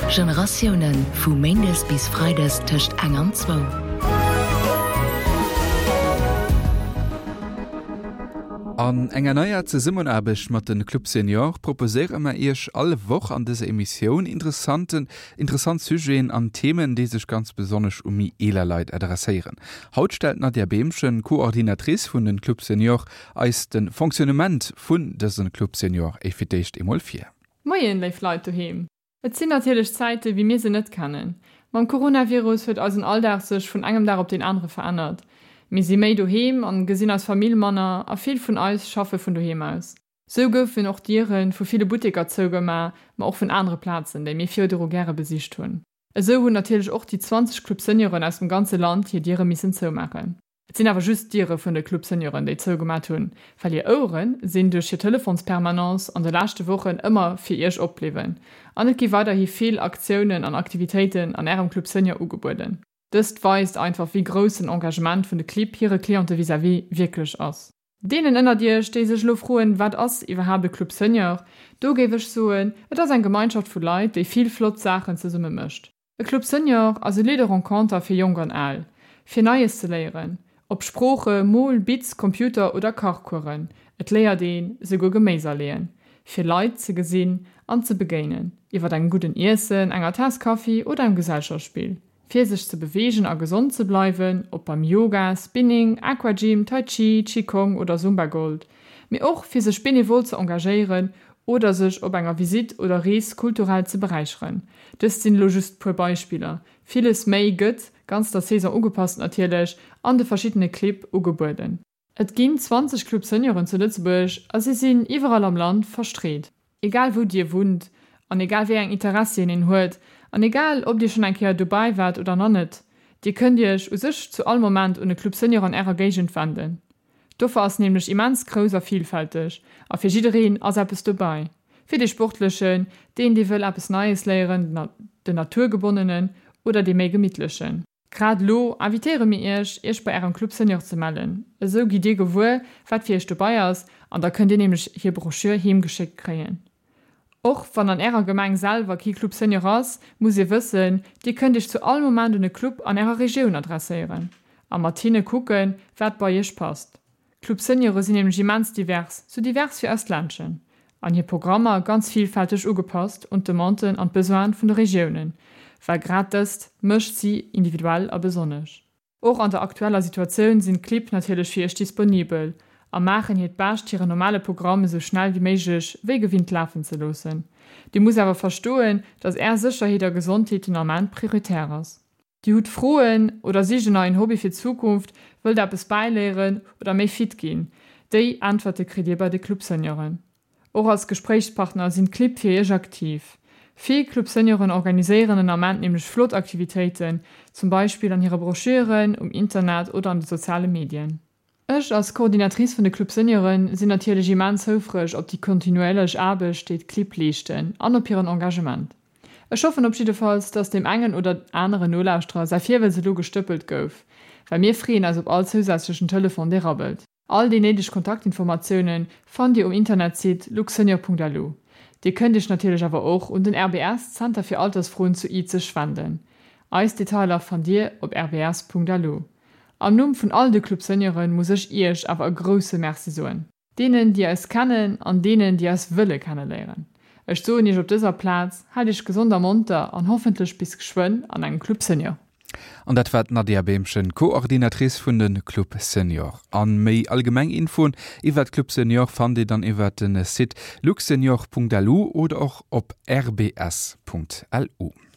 Generatiounen, vu méindes bis freides tëscht eng an zwou. An enger neier Zesummenaarbecht mat de Club Senior proposéiere mer Iech all Woch an dëser Emissioun interessanten interessant Sujeten an Themen, déi sech ganz besonnesch u méi eeler Leit adresséieren. Haut stellt d'Nadia Behmchen, Coordinatrice vun den Club Senior, eis de Fonctionnement vun dësen Club Senior fir d'éischt eemol vir. Moien léif Leit doheem. Et sinn natierlech Zäite wéi mir se net kennen. Mam Coronavirus huet eisen Alldag sech vun engem Dag op deen anere verännert. Mir si méi doheem an gesinn eis Famill manner a vill vun eis schaffe vun doheem aus. Sou goufen och d'Diere vu ville Butteker zougema, ma och vun anere Plazen, déi mir virdru gäre besicht hunn. Esou hunn natierlech och déi 20 Club Senioren aus dem ganze Land hir Diere missen zoumaachen. Et sinn awer just d'Diere vun de Club Senioren, déi zougemat hunn, well hir Ouere sinn duerch hir Telefonspermanence an de leschte Wochen ëmmer fir iech opbliwwen. An et gi weiderhi vill Aktiounen an Aktivitéiten an ärem Club Senior ugebueden. Dëst weist einfach, wéi grouss den Engagement vun de Clibb hire Cliente vis-à-vis wierklech ass. Deenen ënnert iech, déi sech elo froen, wat ass iwwerhaapt e Club Senior, do géif ech soen, et ass eng Gemeinschaft vu Leit, déi vill flott Saachen zesumme mécht. E Club Senior ass e Lieu de renconter fir Jonk an Al, fir Neies ze léieren, ob Sprooche, Mol-, Bitz-, Computer oder Kachcoursen, et léiert een esouguer Geméis aleeën, fir Leit ze gesinn an ze begéinen, iwwer engem gudden Iessen, enger Taass Kaffi oder engem Gesellschaftsspill, fir sech ze beweegen a gesond ze bleiwen, ob beim Yoga, Spinning, Aquagym, Tai Chi, Qigong oder Zumba Gold, mee och fir sech benevol ze engagéieren oder sech op enger Visitt oder Rees kulturell ze beräicheren. Dëst sinn elo just puer Beispiller, villes méi gëtt, ganz der Saison ugepasst natierlech, an de verschiddene Clibb ugebueden. Et ginn 20 Club Senioren zu Lëtzebuerg a si sinn iwwerall am Land verstreet. Egal wou dir wunnt an egal wéi eng Interessien een huet an egal ob dir schonn eng Kéier dobäi waart oder nach net, dir kënnt iech u sech zu all Moment un e Club Senior an ärer Géigend wenden. D'Offer ass nämlech immens grouss a vilfälteg a fir jiddereen ass eppes dobäi. Fir dee Sportlechen, deen dee wëll eppes Neies léieren, den Naturgebonnenen oder dee méi Gemittlechen. Grad elo invitéiere mir iech, iech bei ärem Club Senior ze mellen. Esou gitt dir gewuer, wat fir iech dobei ass an da kënnt dir nämlech hir Broschür heem geschéckt kréien. Och wann an ärer Gemeng selwer kee Club Senior ass, musst dir wëssen, dir kënnt iech zu all Moment un e Club an ärer Regioun adresséieren a mat hinne kucken, wat bei iech passt. D'Club Seniore sinn nämlech immens divers, sou divers wéi eist Ländchen, an hir Programmer ganz villfälteg ugepasst un d'Demanden an d'Besoine vun de Regiounen, well grad dëst mécht si individuell a besonnesch. Och an der aktueller Situatioun sinn d'Clibb natierlech fir iech disponibel a maachen hiert Bescht hiren normale Programm esou schnell wéi méiglech wéi gewinnt lafen ze loossen. Dir musst awer verstoen, dass är Sécherheet a Gesondheet den Ament prioritär ass. Dir hutt Froen oder sicht en neien Hobby fir d'Zukunft, wëllt eppes bäiléieren oder méi fit ginn? Déi Äntwerte kritt dir bei de Club Senioren. Och als Gespréichspartner sinn d'Clibb fir iech aktiv. Vill Club Senioren organiséieren den Ament nämlech flott Aktivitéiten, zum Beispill an hire Broschüren, um Internet oder an de soziale Medien. Ech als Coordinatrice vun de Club Senioren sinn natierlech immens houfreg op déi kontinuéierlech Aarbecht, déi d'Clibb leeschten an op hiren Engagement. Ech hoffen op jiddefalls, dass deem engen oder aneren Nolauschterer säi Virwëlz elo gestëppelt gouf, well mir freeën eis op all zousätzlechen Telefon, dee rabbelt. All déi néideg Kontaktinformatiounen fannt Dir um Internetsite luxsenior.lu. Dir kënnt Iech natierlech awer och un den RBS Zenter fir Altersfroen zu Izeg wenden. Eis Detailer fannt Dir op rbs.lu. Am Numm vun all de Club Senioren muss ech Iech awer e grousse Merci soen. Deenen déi eis kennen an deenen déi eis wëlle kenneléieren. Ech soen Iech op dëser Plaz, haalt Iech gesond a monter an hoffentlech bis geschwënn an engem Club Senior. An dat war d'Nadia Behmchen, Coordinatrice vun de Club Senior. An méi allgemeng Infoen iwwert Club Senior fannt dir dann iwwert den Site luxsenior.lu oder och op rbs.lu.